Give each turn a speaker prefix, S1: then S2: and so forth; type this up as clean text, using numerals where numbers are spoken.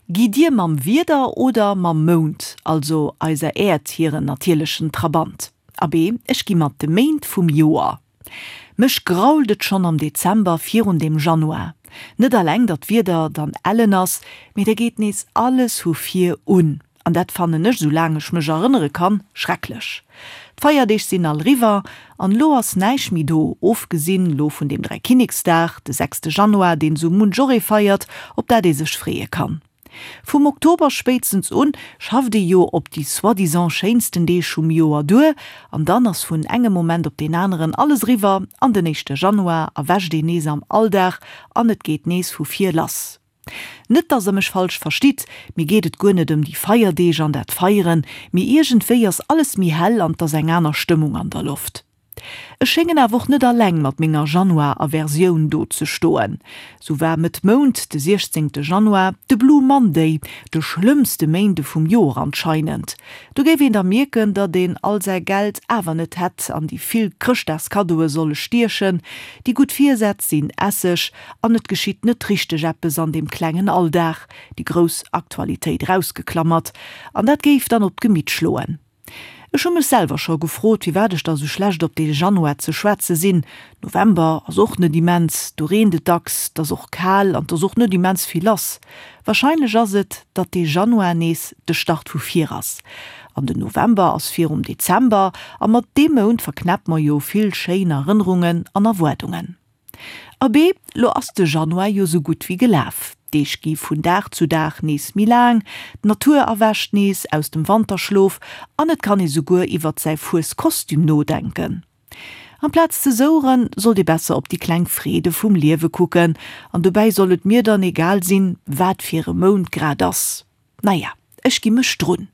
S1: Gitt Dir mam Wieder oder mam Mound, also eiser Äerd hiren natierlechen Trabant? Abee, ech gi mat de Méint vum Joer. Mech grault et schonn am Dezember virun dem Januar. Net alleng datt d'Wieder dann ellen ass, mee da geet nees alles hu vir un. An dat fannen ech, sou laang ech mech erënnere kann, schrecklech. D'Feierdeeg sinn all riwwer an lo ass näischt méi do, ofgesinn lo vun dem Dräikinneksdag, de sechste Januar, deen sou munch och ee feiert, op dat ee sech freeë kann. Vum Oktober spéitstens un schafft ee jo op déi soi-disant schéinsten Deeg vum Joer duer an dann ass vun engem Moment op deen aneren alles eriwwer an den éischte Januar erwächt een nees am Alldag an et geet nees vu vir lass. Net dass der mech falsch verstitt, mir geet et guer net ëm déi Feierdeeg an dat Feieren, mee iergendwéi ass alles méi hell an 't ass eng aner Stëmmung an der Loft. Ech schéngen awer och net alleng mat menger Januar-Aversioun do ze stoen. Sou war Mëtt Mount, de 16 Januar, de Blue Monday, de schlëmmste Méinde vum Joer anscheinend. Do géif een da mierken, datt een all säi Geld awer net hätt an déi vill Chrëschtdagskaddoe solle stiechen, déi gutt Virsätz sinn Esseg an et geschitt net richteg eppes an deem klengen Alldag, déi grouss Aktualitéit erausgeklammert, an dat géif dann op d'Gemitt schloen. Ech hu mech selwer scho gefrot, firwat ech da sou schlecht op dee Januar ze schwätze sinn. November ass och net immens, do reent et dacks, 't ass och kal an 't ass och net immens vill lass. Warscheinlech ass et, datt dee Januar nees de Start vu vir ass. An den November ass virum Dezember a mat deem Mount verknäpp mer jo vill schéin Erënnerungen an Erwaardungen. Abee, lo ass de Januar jo sou gutt wéi gelaf. D'Deeg gi vun Dag zu Dag nees méi laang, d'Natur erwächt nees aus dem Wanterschlof an et kann ee souguer iwwert säi Fueskostüm nodenken. Amplaz ze soueren, sollt ee besser op déi kleng Freede vum Liewe kucken an dobäi soll et mir dann egal sinn, wat fir e Mount grad ass. Naja, ech gi mech drun.